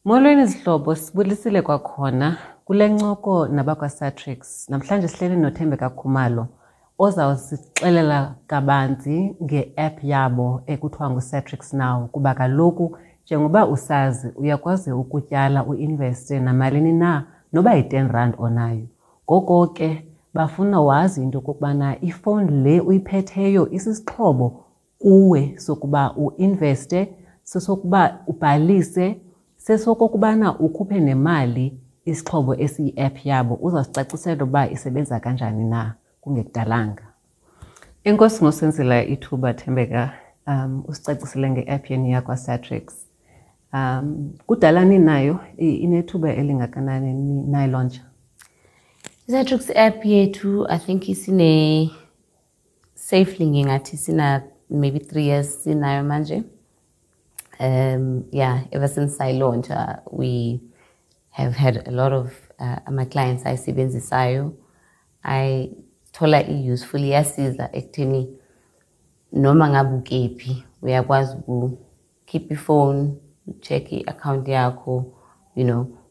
Molweni zihlobo, sibulisile kwakhona kule ncoko nabakwaSatrix. Namhlanje sihleli noThembeka Khumalo ozawusixelela kabanzi nge-app yabo ekuthiwa nguSatrix Now, kuba kaloku njengoba usazi uyakwazi ukutyala uinveste namalini na noba yi-10 rand onayo. Ngoko ke bafuna wazi into yokokubana ifowuni le uyiphetheyo isisixhobo kuwe sokuba uinveste, sesokuba ubhalise, sesokokubana ukhuphe nemali, isixhobo esiyi-app yabo. Uzawusicacisela uba isebenza kanjani na kungekudalanga. Enkosi ngosenzela ithuba, Thembeka, usicacisele nge-app yenu yakwaSatrix. Kudala ninayo, inethuba elingakanani nayilauncha? I-Satrix app yethu, I think isine safely ngingathi sina maybe 3 years sinayo manje. Yeah, ever since I launched, we have had a lot of ama-clients ayisebenzisayo, ayithola i-useful, iyasiza ekutheni noma ngabe ukephi uyakwazi ukukhipha ifone, check i-account yakho,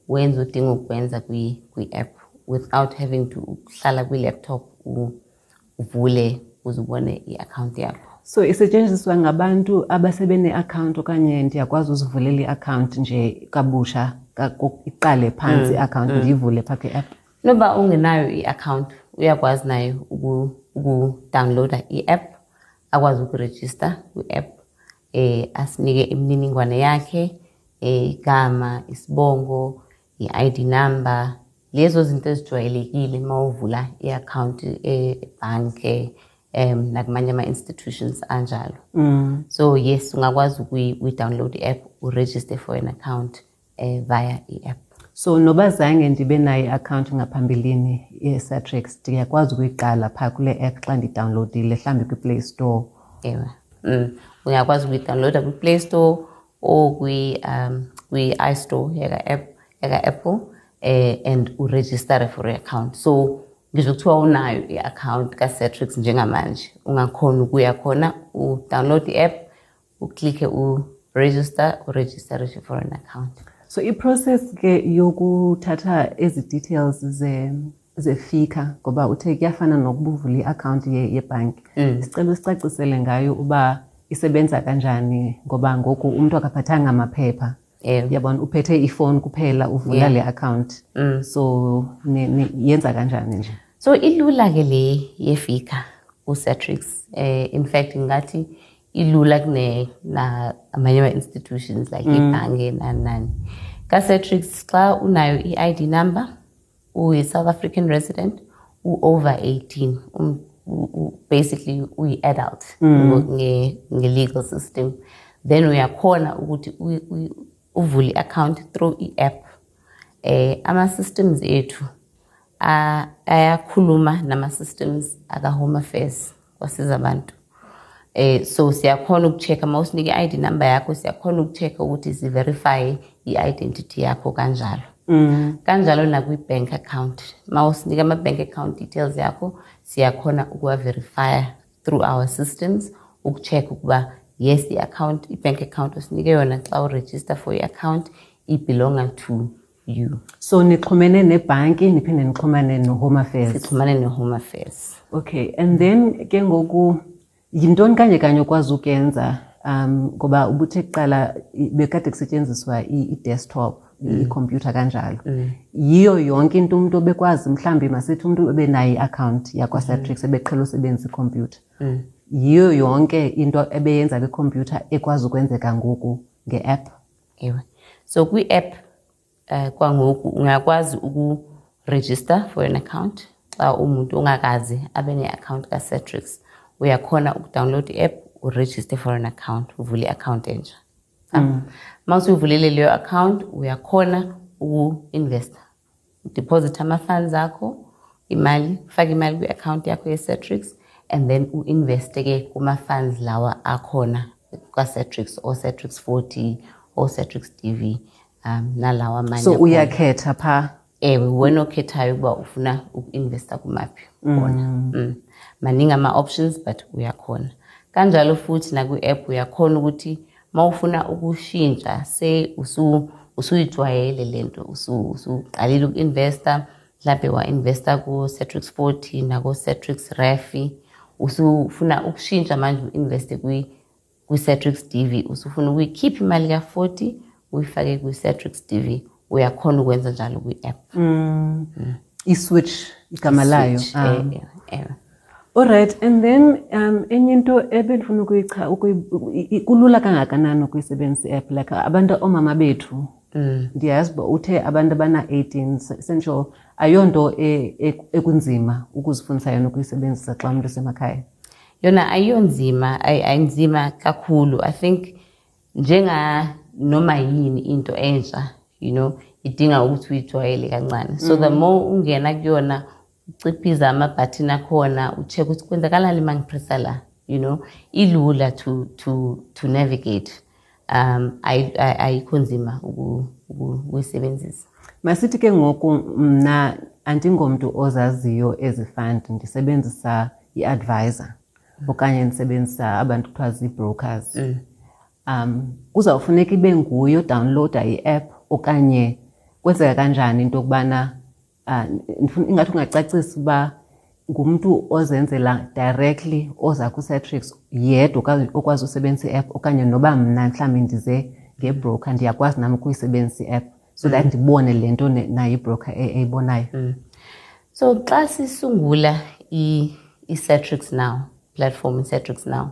wenze odinga ukwenza kwi-app without having to ukuhlala kwi-laptop uvule uze ubone i-account yakho. So isetyenziswa ngabantu abasebene-account okanye ndiyakwazi uzivulela i-account nje kabusha, iqale phantsi i-account ndiyivule phaa kwi-app? Noba ungenayo i-account, uyakwazi nayo ukudownloada i-app, akwazi ukurejista kwi-app, asinike imininingwane yakhe, igama, isibongo, i-ID number, lezo zinto ezijwayelekile uma uvula i-account ebhanke nakumanye ama-institutions anjalo. So yes, ungakwazi ukuyi-download i-app, uregister for an account via i-app. So noba zange ndibe nayo i-account ngaphambilini ye-Satrix, ndiyakwazi ukuyiqala phaa kule app xa ndidownloadile mhlawumbi kwiPlay Store? Ewe. Uyakwazi ukuyidownloada kwi-Play Store or kwi-iStore yaka-app yaka-Apple and uregistere for i-account. So ngisho kuthiwa unayo i-account ka-Satrix njengamanje, ungakhona ukuya khona, udownload i-app, uklikhe uregister, uregistere for an account. So iprocess ke yokuthatha ezi details zeFICA, ngoba uthe kuyafana nokuba uvula i-account yebhanki, sicela usicacisele ngayo uba isebenza kanjani, ngoba ngoku umntu akaphathanga amaphepha. Yabona, uphethe ifowuni kuphela, uvula le account. So yenza kanjani nje? So ilula ke le yeFICA kuSatrix. In fact ngathi ilula kune na amanye ama-institutions like ibhange nani nani. KaSatrix xa unayo i-ID number, uyi-South African resident, u-over 18, basically uyi-adult nge-legal system, then uyakhona ukuthi uvule i-account through i-app. Ama-systems ethu ayakhuluma nama-systems aka-Home Affairs kwasiza abantu. So siyakhona ukucheck uma usinike i-ID number yakho, siyakhona ukucheck ukuthi si-verify i-identity yakho kanjalo. Kanjalo nakwi-bank account, uma usinika ama-bank account details yakho, siyakhona ukuwa-verifya through our systems, ukucheck ukuba yes, i-account, i-bank account osinike yona xa uregister for i-account ibelonga to you. So nixhumene nebhanki, niphinde nixhumane no-Home Affairs? Sixhumane ne-Home Affairs. Okay, and then ke ngoku yintoni kanye kanye okwazi ukuyenza, ngoba ubuthe kuqala bekade kusetyenziswa i-desktop, ikhompyutha kanjalo? Yiyo yonke into umuntu obekwazi, mhlawumbi masithi umuntu ebenayo i-account yakwaSatrix ebeqhela usebenzisa ikhompyutha, yiyo yonke into ebeyenza kwikhompyutha ekwazi ukwenzeka ngoku nge-app? Ewe, so kwi-app kwangoku ungakwazi uku-register for an account. Xa umuntu ongakazi abe ne-account ka-Satrix, uyakhona ukudownload i-app, uregister for an account, uvule i-account entsha. Uma usuyivulile leyo account, uyakhona uku-investa, udeposit ama-funds akho, imali, ufake imali kwi-account yakho ye-Satrix and then u-investe ke kuma-funds lawa akhona kwa-Satrix, o-Satrix 40, o-Satrix DV, nalawa amanye So akhona. Uyakhetha phaa? Ewe, wena okhethayo ukuba ufuna uku-investa kumaphi khona. Maningi ama-options, but uyakhona kanjalo futhi nakwi-app uyakhona ukuthi uma ufuna ukushintsha, say Usuyijwayele lento, usuqalile uku-investa, mhlambe wa-investa ku-Satrix 40 nako-Satrix RAFI, usufuna ukushintsha manje u-investe kwi-Satrix DV, usufuna ukuyikhipha imali ka-40 uyifake kwi-Satrix DV, uyakhona ukwenza njalo kwi-app. I-switch igama layo. All right, and then enye into ebendifuna kulula kangakanani ukuyisebenzisa i-app, like abantu oomama bethu, ndiyazi uba uthe abantu abana-18 sentsho ayonto ekunzima ukuzifundisa yona ukuyisebenzisa xa umntu esemakhaya. Yona ayiyonzima, ayinzima kakhulu. I think njenga noma yini into entsha, idinga ukuthi uyijwayele kancane. So the more ungena kuyona, uciphiza amabhathini akhona, ucheck ukuthi kwenzakalani uma ngipressa la, ilula to navigate. Ayikho nzima ukuyisebenzisa. Masithi ke ngoku mna andingomntu ozaziyo ezi fund, ndisebenzisa i-advisor okanye ndisebenzisa abantu kuthiwa zii-brokers. Kuzawufuneka ibe nguye odownloada i-app okanye kwenzeka kanjani into yokubana, ingathi ungacacisa uba ngumntu ozenzela directly oza ku-Satrix yedwa okwazi usebenzisa i-app, okanye noba mna mhlawumbi ndize ngebroker ndiyakwazi nam ukuyisebenzisa i-app so that ndibone le nto nayo ibroker eyibonayo. So xa sisungula i-Satrix Now platform, i-Satrix Now,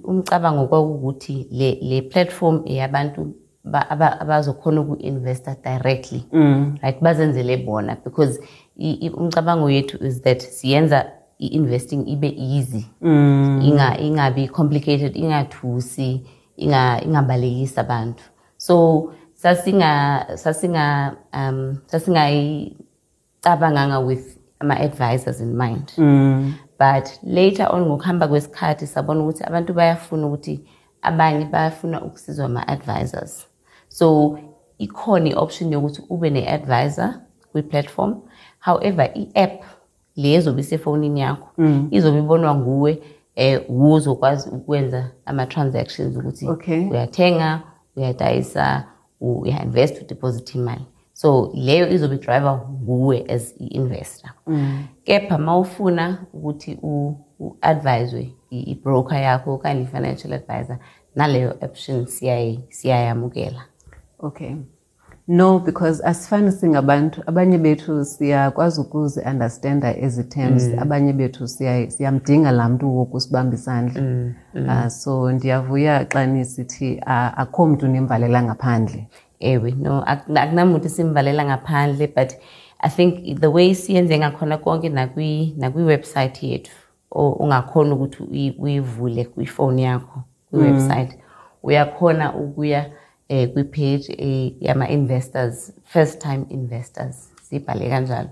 umcabango kwakukuthi le platform eyabantu abazokhona uku-investa directly, right, bazenzele bona, because umcabango yethu is that siyenza i-investing ibe easy, ingabi complicated, ingathusi, ingabalekisi abantu. So sasingayicabanganga with ama-advisors in mind. But later on ngokuhamba kwesikhathi sabona ukuthi abantu bayafuna ukuthi abanye bayafuna ukusizwa ama-advisors. So ikhona i-option yokuthi ube ne-advisor kwi-platform. However, i-app le ezobe isefonini yakho izobe ibonwa nguwe, uzokwazi ukwenza ama-transactions ukuthi uyathenga, uyadayisa, uya-invest, udeposit imali. So leyo izobe driver nguwe as i-investor. Kepha mawufuna ukuthi u-advise i-broker yakho okanye i-financial advisor, naleyo option siyayamukela. Okay. No, because asifani singabantu, abanye bethu siyakwazi ukuzi-understanda ezi terms, abanye bethu siyamdinga laa mntu wokusibamba isandla. So ndiyavuya xa nisithi akho mntu nimvalela ngaphandle. Ewe, no, akunamuntu simvalela ngaphandle, but I think the way siyenze ngakhona konke nakwi-website yethu, ungakhona ukuthi uyivule kwifoni yakho kwi-website, uyakhona ukuya kwi-page yama-investors, first time investors, sibhale kanjalo.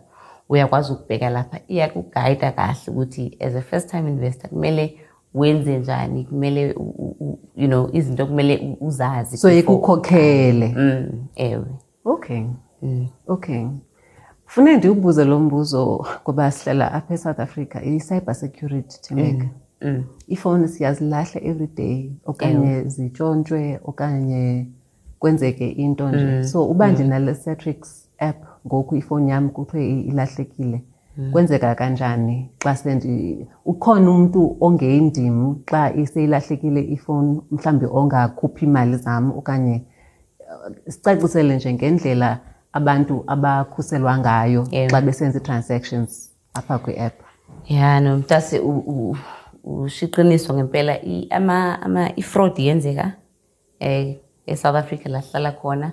Uyakwazi ukubheka lapha, iyakugayida kahle ukuthi as a first time investor kumele wenze njani, kumele izinto kumele uzazi. So ikukhokhele. Ewe. Okay. Okay. Fune ndiwubuze lo mbuzo ngoba sihlala apha eSouth Africa, i-cyber security, Thembeka. Ifowuni siyazilahla every day okanye zitshontshwe okanye kwenzeke into nje. So uba ndinale Satrix app ngoku ifowuni yam kuthiwe ilahlekile, kwenzeka kanjani xa ukhona umuntu ongendim xa iseyilahlekile ifowuni, mhlawumbi ongakhuphi imali zam, okanye sicacisele nje ngendlela abantu abakhuselwa ngayo xa besenza i-transactions apha kwi-app. Ya, no, mntase, ushiqiniso ngempela, i-fraud yenzeka e-South Africa la sihlala khona,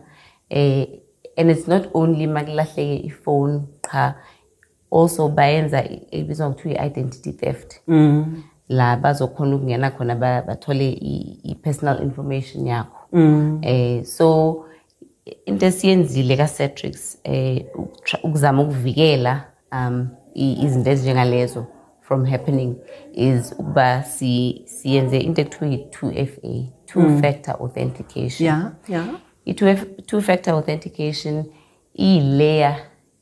and it's not only makulahleke ifone qha, also bayenza ebizwa ngokuthiwa i-identity theft. La bazokhona ukungena khona bathole i-personal information yakho. So into esiyenzile ka-Satrix, ukuzama ukuvikela izinto ezinjengalezo from happening is ukuba siyenze into ekuthiwa yi-2FA, two factor authentication. I-two factor authentication iyi-layer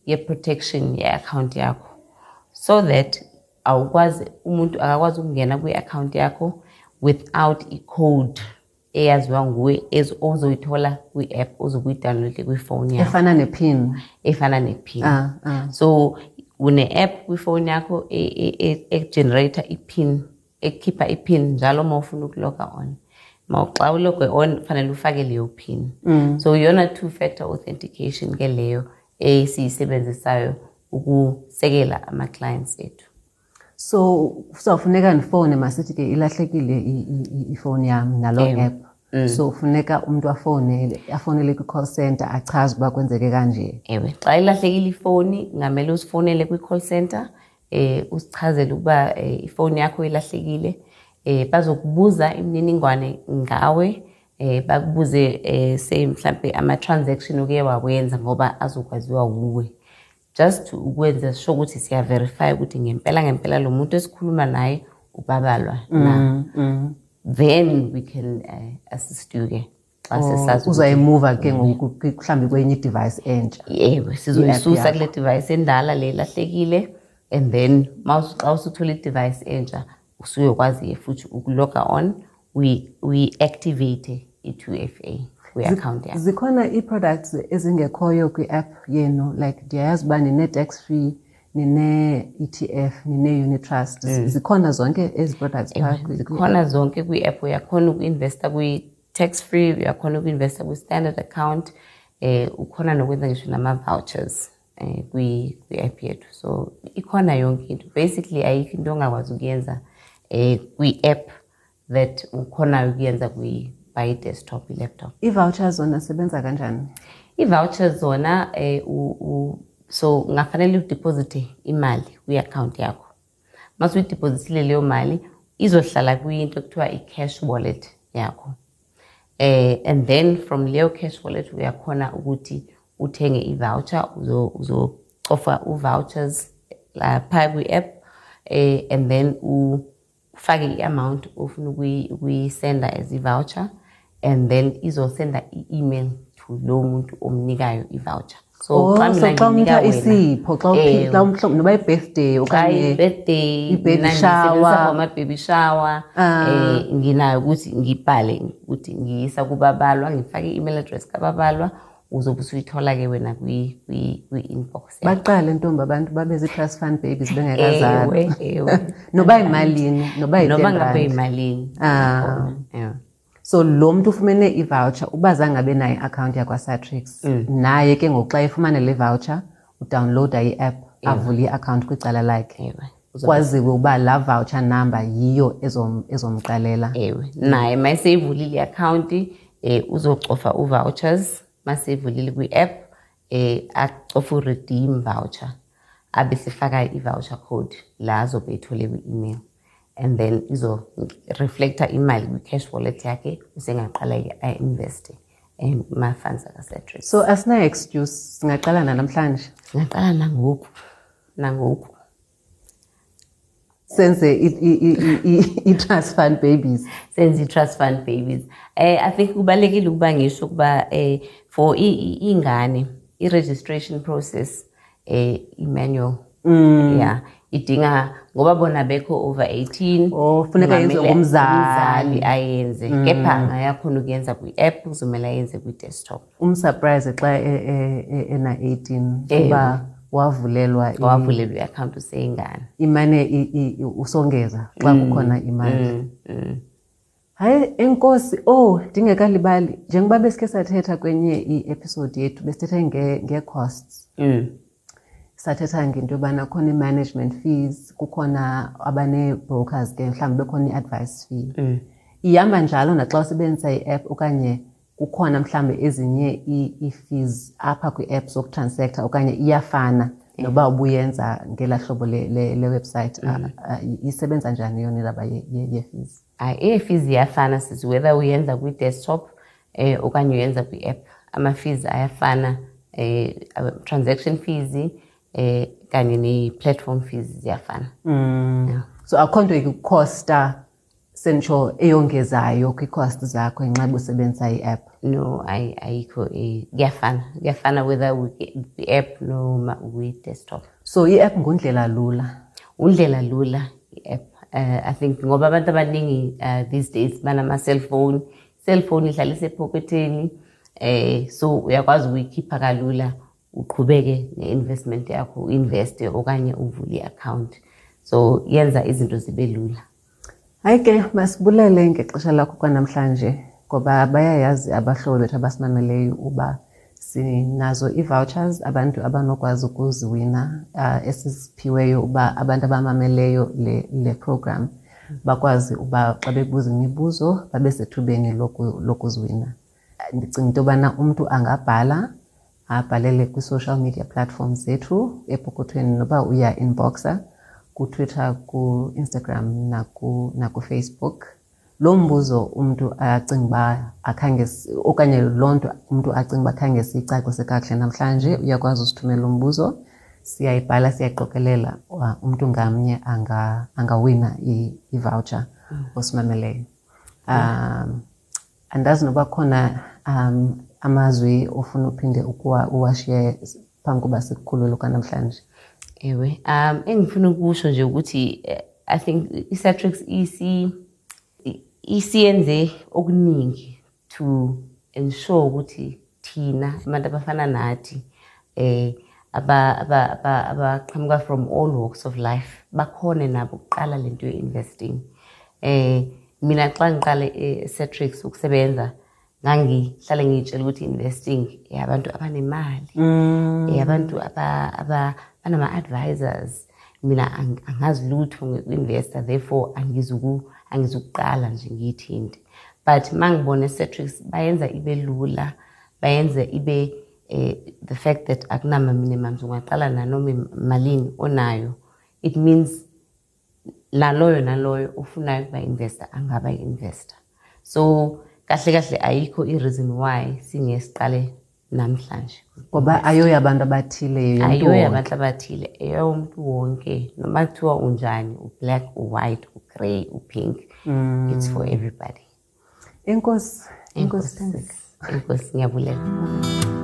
ye-protection ye-account yakho, so that awukwazi, umuntu akakwazi ukungena kwi-account yakho without i-code eyaziwa nguwe ozoyithola kwi-app ozobuyidownloade kwifowuni yakho. Efana ne-PIN. Efana ne-PIN. So une-app kwifowuni yakho e-generator i-PIN, ekhipha i-PIN njalo uma ufuna ukuloga on. Xa uloge on kufanele ufake leyo PIN. So iyona two-factor authentication ke leyo esiyisebenzisayo ukusekela ama-clients ethu. So kuzawufuneka ndifowune, masithi ke ilahlekile ifowuni yam naloo app. So funeka umntu afonele kwi-call center achaze uba kwenzeke kanje. Ewe, xa ilahlekile ifowuni kungamele usifonele kwi-call center, usichazele ukuba ifowuni yakho ilahlekile. Bazokubuza imininingwane ngawe, bakubuze say mhlambe ama-transaction oke wawenza ngoba azokwaziwa wuwe. Just ukwenza sure ukuthi siya-verify ukuthi ngempela ngempela lo muntu esikhuluma naye uBabalwa na. Then we can assist you ke xa sesazi ukuthi Uzayimuva ke ngoku mhlawumbi kwenye i-device entsha. Ewe, sizoyisusa I-app kule device endala le ilahlekile, and then xa usuthola i-device entsha usuyokwazi ke futhi ukuloga on, uyi-activate i-2FA kwi-account yakho. Zikhona ii-products ezingekhoyo kwi-app yenu, like ndiyayazi uba nine-tax free, nine-ETF, nine-unit trust. Zikhona zonke ezi products phaa Zikhona zonke kwi-app. Uyakhona uku-investa kwi-tax free, uyakhona uku-investa kwi-standard account, ukhona nokwenza ngisho nama-vouchers kwi-app yethu. So ikhona yonke into. Basically ayikho into ongakwazi ukuyenza kwi-app that ukhonayo ukuyenza by desktop, i-laptop. I-vouchers zona sebenza kanjani? I-vouchers zona so ungafanele udeposite imali kwi-account yakho. Mase uyidepositile leyo mali izohlala kwinto ekuthiwa i-cash wallet yakho. And then from leyo cash wallet uyakhona ukuthi uthenge i-voucher, uzocofa u-vouchers lapha kwi-app, and then ufake i-amount ofuna ukuyisenda as i-voucher, and then izosenda i-email to lo muntu omnikayo i-voucher. So Oh, xa mina so xa nginika umntu wena, isipho, xa xa umhlobo, noba i-birthday Xa okanye i-birthday, i-baby mina ngisebenzisa shower. for ama-baby shower, nginayo ukuthi ngibhale ukuthi ngiyisa kuBabalwa, ngifake i-email address kaBabalwa, uzobe usuyithola ke wena kwi-inbox yakho. Baqale ntombi abantu babe zii-trust fund babies bengekazalwa. Ewe, ewe. Noba yimalini, noba yi-ten Noba ngabe rand. yimalini. Yeah. So lo mntu ufumene i-voucher uba zange abe nayo i-account yakwaSatrix, naye ke ngoku xa efumane le voucher udownloada i-app, avule i-account kwicala lakhe. Kwaziwe uba laa voucher number yiyo ezomqalela. Ewe, naye mayeseyivulile i-account, uzocofa u-vouchers, maseyivulile kwi-app, acofe u-redeem voucher, abe sefaka i-voucher code la azobe eyithole kwi-email. And then izo-reflecta imali kwi-cash wallet yakhe, usengaqala ke a-investe kuma-funds akaSatrix. So asinayo excuse, singaqala namhlanje? Singaqala nangoku, nangoku. Senze i-trust fund babies. Senze i-trust fund babies. I think kubalulekile ukuba ngisho ukuba for ingane i-registration process i-manual. Yeah, idinga ngoba bona bekho over 18. Oh, funeka yenziwe Kungamele ngumzali. umzali ayenze. Kepha angayakhona ukuyenza kwi-app, kuzomele ayenze kwi-desktop. Umsurprise xa ena 18 kuba wavulelwa Wavulelwa i-account useyingane. Imane usongeza xa kukhona imali. Hayi, enkosi, oh, ndingekalibali. Njengoba besikhe sathetha kwenye i-episode yethu, besithetha nge-costs. Sathetha ngento yobana khona i-management fees, kukhona abane-brokers ke, mhlawumbi bekhona i-advice fee. Ihamba njalo naxa usebenzisa i-app okanye kukhona mhlawumbi ezinye ii-fees apha kwi-app zokutransacta okanye iyafana noba ubuyenza ngelaa hlobo le website. Isebenza njani yona indaba ye-fees? Hayi, ii-fees ziyafana sisi, whether uyenza kwi-desktop okanye uyenza kwi-app. Ama-fees ayafana, transaction fees kanye ne-platform fees ziyafana. Yeah. So akho nto ikukhosta sentsho eyongezayo kwii-cost zakho ngenxa ubusebenzisa i-app? No, ayikho, kuyafana. Kuyafana whether kwi-app noma kwi-desktop. So i-app ngundlela lula? Undlela lula i-app. I think ngoba abantu abaningi these days banama-cellphone, Cellphone ihlala isepocketeni, so uyakwazi ukuyikhipha kalula, uqhubeke ne-investment yakho, uinveste okanye uvule i-account. So yenza izinto zibe lula. Hayi ke, masibulele ngexesha lakho kwanamhlanje, ngoba bayayazi abahlobo bethu abasimameleyo uba sinazo ii-vouchers abantu abanokwazi ukuziwina, esiziphiweyo uba abantu abamameleyo le program bakwazi uba xa bebuza imibuzo babe sethubeni lokuziwina. Ndicinga into yobana umntu angabhala, abhalele kwi-social media platforms zethu epokothweni, noba uya inboxa kuTwitter, ku-Instagram nakuFacebook. Lo mbuzo umntu acinga uba akhange okanye loo nto umntu acinga uba khange siyicacise kakuhle namhlanje, uyakwazi usithumela umbuzo, siyayibhala, siyayiqokelela, umntu ngamnye angawina i-voucher osimameleyo. Andazi noba khona amazwi ofuna uphinde uwashiye phambi koba sikukhulule kwanamhlanje. Ewe, engifuna ukusho nje ukuthi I think i-Satrix isiyenze okuningi to ensure ukuthi thina abantu abafana nathi abaqhamuka from all walks of life bakhone nabo ukuqala lento ye-investing. Mina xa ngiqale e-Satrix ukusebenza, ngangihlale ngiyitshela ukuthi investing eyabantu abanemali, eyabantu abanama-advisors. Mina angazi lutho ngoku-investa, therefore angizukuqala nje ngiyithinte. But mangibona e-Satrix bayenza ibe lula, bayenza ibe the fact that akunama minimums, ungaqala nanoma malini onayo. It means naloyo naloyo ofunayo ukuba investor angaba investor. So kahle kahle ayikho i-reason why singesiqale namhlanje. Ngoba ayoya abantu abathile, yeyomntu Ayoya wonke. abantu abathile, eyomntu wonke. Noma kuthiwa unjani, u-black, u-white, u-grey, u-pink, it's for everybody. Enkosi. Enkosi, Enkosi. Thandeka. Enkosi, ngiyabulela.